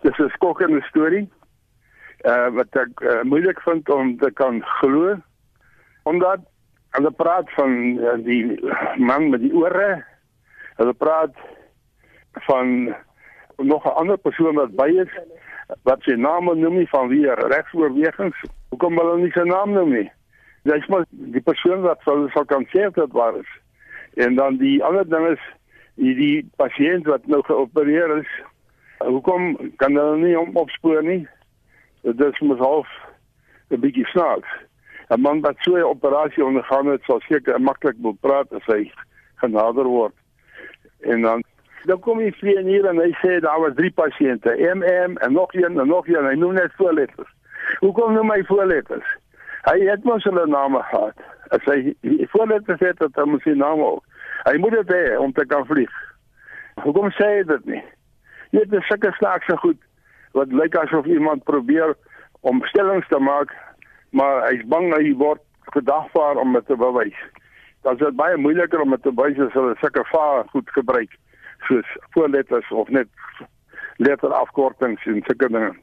Dis 'n skokkende storie wat ek moeilik vind om te kan glo, omdat hulle praat van die man met die ore, hulle praat van nog 'n ander persoon wat by is, wat sy naam noem nie van wie regsoorwegings. Hoekom hulle nie sy naam noem nie? Dis maar die persoon wat sal kan sê dat waar is. En dan die ander ding is die pasiënt wat nou geopereer is. Hoekom kan hulle nie hom opspoor nie? Dit is mos half 'n bietjie snaaks. 'n Man wat so 'n operasie ondergaan het, sal seker maklik wil praat as hy genader word. En dan kom hy vlieg hier en hy sê daar was 3 pasiënte, MM en nog een en nog een. Hy noem net voorletters. Hoekom noem hy voorletters? Hy het mos hulle name gehad. As hy voorletters het, dan moet sy name ook. Hy moet dit hê om te kan vlieg. Hoekom sê hy dit nie? Dit is sulke snaakse goed wat lyk asof iemand probeer om stellings te maak, maar hy's bang hy word gedagvaar om dit te bewys. Dan is dit baie moeiliker om dit te bewys as hulle sulke vaar goed gebruik, soos voorletters of net letterafkortings en sulke dinge.